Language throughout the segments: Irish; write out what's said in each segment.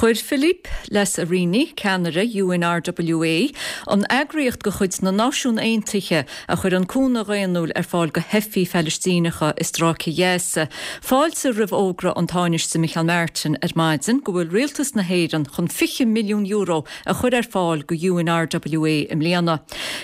Chuir Philippe Lazzarini, ceannaire UNRWA, an eagraíocht de chuid na Náisiún Aontaithe a chuireann cúnamh dhaonnúil ar fáil do theifigh Phalaistíneacha i Stráice Ghaza, fáilte roimh fhógra an Tánaiste Micheál Martin ar maidin go bhfuil Rialtas na hÉireann chun €20 milliún a chur ar fáil go UNRWA i mbliana.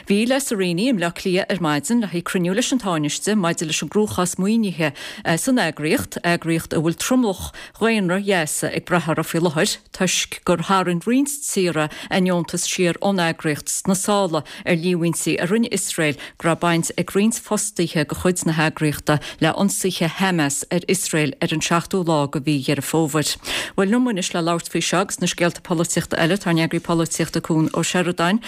Bhí Lazzarini i mBleá Cliath ar maidin le haghaidh cruinniú leis an Tánaiste maidir leis an gcruachás maoinithe san eagraíocht, eagraíocht a bhfuil tromlach dhaonra Ghaza ag brath uirthi faoi láthair toisc gur tharraing roinnt tíortha a ndeontas siar ón eagraíocht sna sála ar líomhaintí a rinne Iosrael go raibh baint ag roinnt fostaithe de chuid na heagraíochta le ionsaithe Hamas ar Iosrael ar an seachtú lá de mhí Dheireadh Fómhair. Bhuel, liom anois le labhairt faoi seo agus na scéalta polaitíochta eile tá ár n-eagraí polaitíochta Cuan Ó Seireadáin.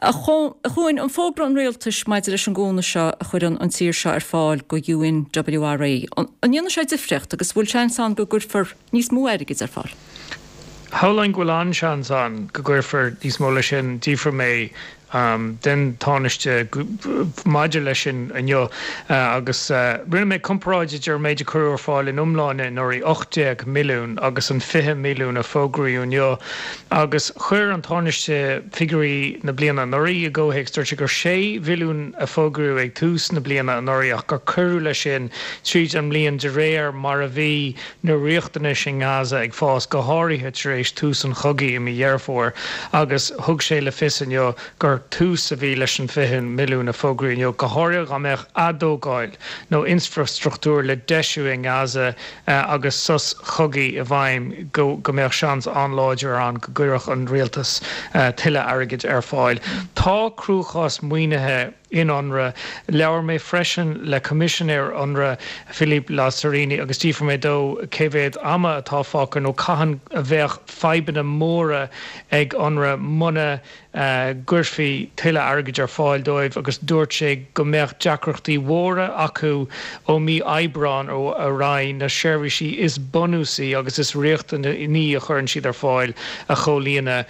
A Chuain, an fógra an rialtais maidir leis an gcúnamh seo a chuireann an tír seo ar fáil go UNWRA, an ndéanfaidh sé difríocht agus bhfuil seans ann go gcuirfear níos mó airgid ar fáil? Shamhlóinn go bhfuil an-seans ann go gcuirfear níos mó leis sin. D'fhiafraigh mé den Tánaiste maidir leis sin inniu agus rinne mé comparáid idir an méid a cuireadh ar fáil in iomláine anuraidh, 18 milliún, agus an 20 milliún a fógraíodh inniu agus chuir an Tánaiste figiúirí na bliana anuraidh i gcomhthéacs. Dúirt sé gur 6 mhilliún a fógraíodh ag tús na bliana anuraidh ach gur cuireadh leis sin tríd an mbliain de réir mar a bhí na riachtanais i nGaza ag fás, go háirithe tar éis tús an chogaidh i mí Dheireadh Fómhair, agus thug sé le fios inniu gur tús a bhí leis an 20 milliún a fógraíodh inniu, go háirithe dá mbeadh atógáil nó infrastruchtúr le deisiú i nGaza agus sos cogaidh i bhfeidhm, go mbeadh seans an-láidir ann go gcuirfeadh an rialtas tuilleadh airgid ar fáil. Tá cruachás maoinithe. in Unrwa. Labhair mé freisin le Coimisinéir Unrwa, Philippe Lazzarini, agus d'fhiafraigh mé dó cé mhéad ama atá fágtha nó cathain a bheadh fadhbanna móra ag Unrwa muna gcuirfí tuilleadh airgid ar fáil dóibh agus dúirt sé go mbeadh deacrachtaí mhóra acu ó mí Aibreáin ar aghaidh na seirbhísí is bunúsaí agus is riachtanaí a chuireann siad ar fáil a chomhlíonadh.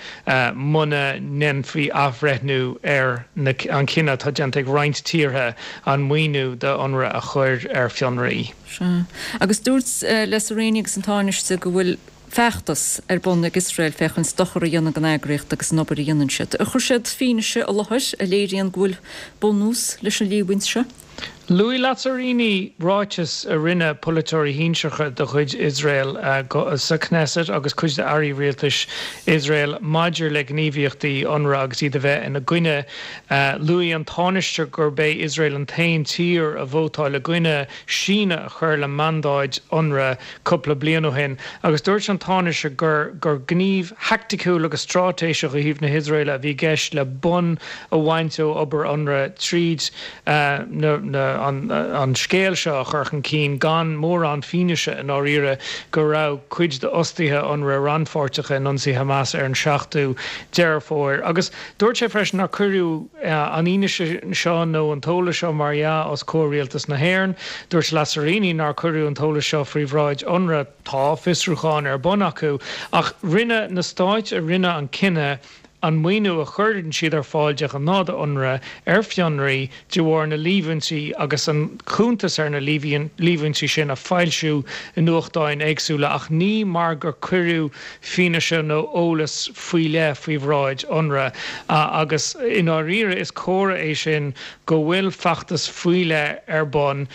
muna ndéanfaí athbhreithniú ar an chinneadh atá déanta ag roinnt tíortha an maoiniú do Unrwa a chur ar fionraí. Sea. Agus dúirt Lazzarini agus an Tánaiste go bhfuil feachtas ar bun ag Iosrael féachaint dochar a dhéanamh don eagraíocht agus an obair a dhéanann siad. Ar chuir siad fianaise i láthair a léiríonn go bhfuil bunús leis an líomhaint seo? Luaigh Lazzarini ráiteas a rinne polaiteoirí shinsearacha de chuid Iosrael sa Knesset agus cuid d'airí rialtais Iosrael maidir le gníomhaíochtaí Unrwa agus iad a bheith ina gcoinne. Luaigh an Tánaiste gurb é Iosrael an t-aon tír a vótáil i gcoinne síneadh a chur le mandáid Unrwa cúpla bliain ó shin agus dúirt an Tánaiste gur gur gníomh thaicticiúil agus straitéiseach ó thaobh na hIosraeile a bhí i gceist le bonn a bhaint ó obair Unrwa tríd an scéal seo a chur chun cinn gan mórán fianaise i ndáiríre go raibh cuid d'fhostaithe Unrwa rannpháirteach in ionsaí Hamas ar an 7ú Deireadh Fómhair. Agus dúirt sé freisin nár cuireadh an fhianaise seo nó an t-eolas seo mar dhea os comhair Rialtas na hÉireann. Dúirt Lazzarini nár cuireadh an t-eolas seo faoi bhráid Unrwa. Tá fiosrúchán ar bun acu ach rinne na stáit a rinne an cinneadh an maoiniú a chuireann siad ar fáil de ghnáth do Unrwa ar fionraí de bharr na líomhaintí agus an cuntas ar na líomhaintí sin a foilsiú i nuachtáin éagsúla ach ní mar gur cuireadh fianaise nó eolas faoi leith faoi bhráid Unrwa agus i ndáiríre is comhartha é sin go bhfuil feachtas faoi leith ar bun.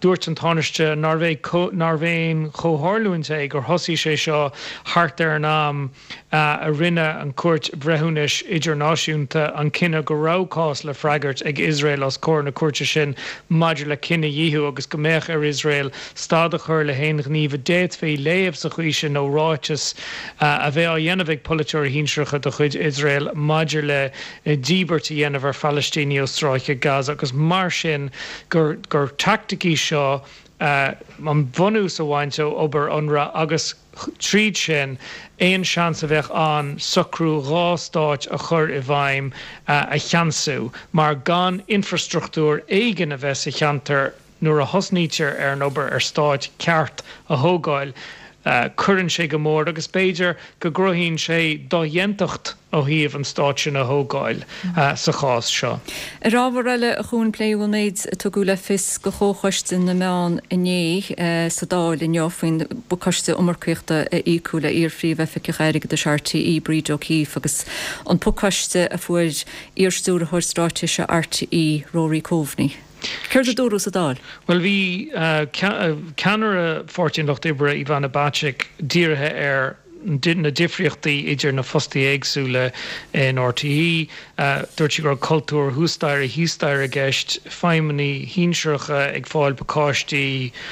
Dúirt an Tánaiste nárbh aon chomhtharlúint é gur thosaigh sé seo thart ar an am a rinne an Chúirt Bhreithiúnais Idirnáisiúnta an cinneadh go raibh cás le freagairt ag Iosrael os comhair na cúirte sin maidir le cinedhíothú agus go mbeadh ar Iosrael stad a chur le haon ghníomh a d'fhéadfaí léamh sa chaoi sin nó ráiteas a bheith á dhéanamh ag polaiteoirí shinsearacha de chuid Iosrael maidir le díbirt a dhéanamh ar Phalaistínigh ó Stráice Gaza agus mar sin gur teaictic í seo an bunús a bhaint ó obair Unrwa agus tríd sin, aon seans a bheadh ann socrú dha stáit a chur i bhfeidhm a cheansú, mar gan infrastruchtúr éigin a bheith sa cheantar nuair a thosnaítear ar an obair ar stáit ceart a thógáil. Cuireann sé go mór agus b'fhéidir go gcruthaíonn sé dodhéantacht ó thaobh an stát sin a thógáil sa chás seo. Ar ábhar eile, a Chuain, pléadh an méid a tugadh le fios do Chomhchoiste na Meán inné sa Dáil inniu faoin bpacáiste iomarcaíochta a íocadh le iar-Phríomh-Oifigeach Airgeadais RTÉ, Bríd O'Keeffe, agus an pacáiste a fuair iar-Stiúrthóir Straitéise RTÉ, Rory Coveney. Céard a dúradh sa Dáil? Bhuel, bhí ceannaire Pháirtí an Lucht Oibre, Ivana Bacik, dírithe ar na difríochtaí idir na fostaithe éagsúla in RTÉ. Dúirt sí go raibh cultúr thuas staighre thíos staighre i gceist, feidhmeannaigh shinsearacha ag fáil pacáistí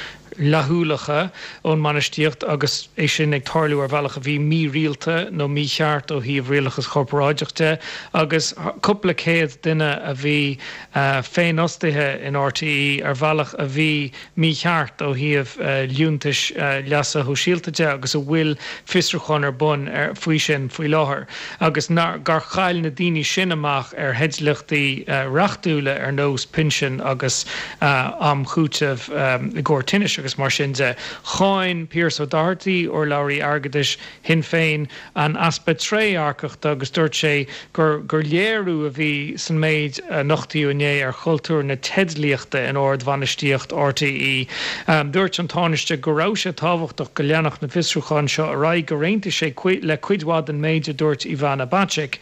fhlaithiúlacha ón mbainistíocht agus é sin ag tarlú ar bhealach a bhí mírialta nó mícheart ó thaobh rialachas corparáideach de agus cúpla céad duine a bhí féinfhostaithe in RTÉ ar bhealach a bhí mícheart ó thaobh liúntais leasa shóisialta de agus a bhfuil fiosrúchán ar bun faoi sin faoi láthair agus gur chaill na daoine sin amach ar theidlíochtaí reachtúla ar nós pinsin agus am chúitimh i gcomhair tinnis agus mar sin de. Cháin Pearse O'Doherty, urlabhraí airgeadais Shinn Féin, an easpa trédhearcachta agus dúirt sé gur gur léiriú a bhí san méid a nochtaíodh inné ar chultúr na teidlíochta in ard-bhainistíocht RTÉ. Dúirt an Tánaiste go raibh sé tábhachtach go leanfadh na fiosrúcháin seo ar aghaidh, gur aontaigh sé le cuid mhaith den méid a dúirt Ivana Bacik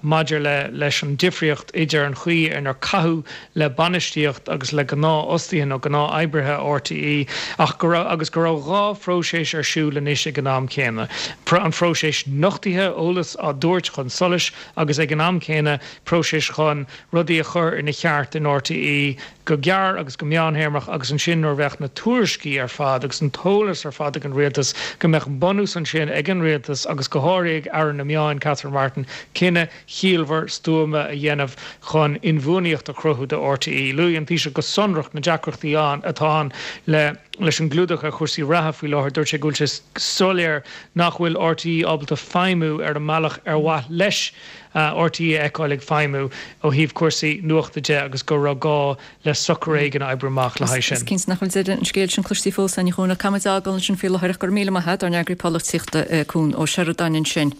maidir le leis an difríocht idir an chaoi inar caitheadh le bainistíocht agus le gnáthfhostaithe nó gnáth-oibrithe RTÉ ach go raibh agus go raibh 2 phróiseas ar siúl anois ag an am céanna, an phróiseas nochtaithe, eolas á dtabhairt chun solais agus ag an am céanna próiseas chun rudaí a chur ina cheart in RTÉ go gearr agus go meánthéarmach agus ansin nuair a bheadh na tuairiscí ar fad agus an t-eolas ar fad ag an rialtas go mbeadh bunús ansin ag an rialtas agus go háirithe ag Aire na Meáin Catherine Martin cinneadh chiallmhar stuama a dhéanamh chun inbhuanaíocht a chruthú do RTÉ. Luaigh an Taoiseach go sonrach na deacrachtaí ann atá ann le leis an gclúdach ar chúrsaí reatha faoi láthair. Dúirt sé go bhfuil sé soiléir nach bhfuil RTÉ ábalta feidhmiú ar an mbealach ar mhaith leis RTÉ a fheiceáil ag feidhmiú ó thaobh cúrsaí nuachta de agus go raibh gá le socrú éigin a oibriú amach le haghaidh sin. Is cinnte nach bhfuil deireadh an scéil sin cloiste fós, a Chuain, ach caithfimid é a fhágáil ansin faoi láthair ach go raibh míle maith agat, ár n-eagraí polaitíochta Cuan Ó Seireadáin ansin.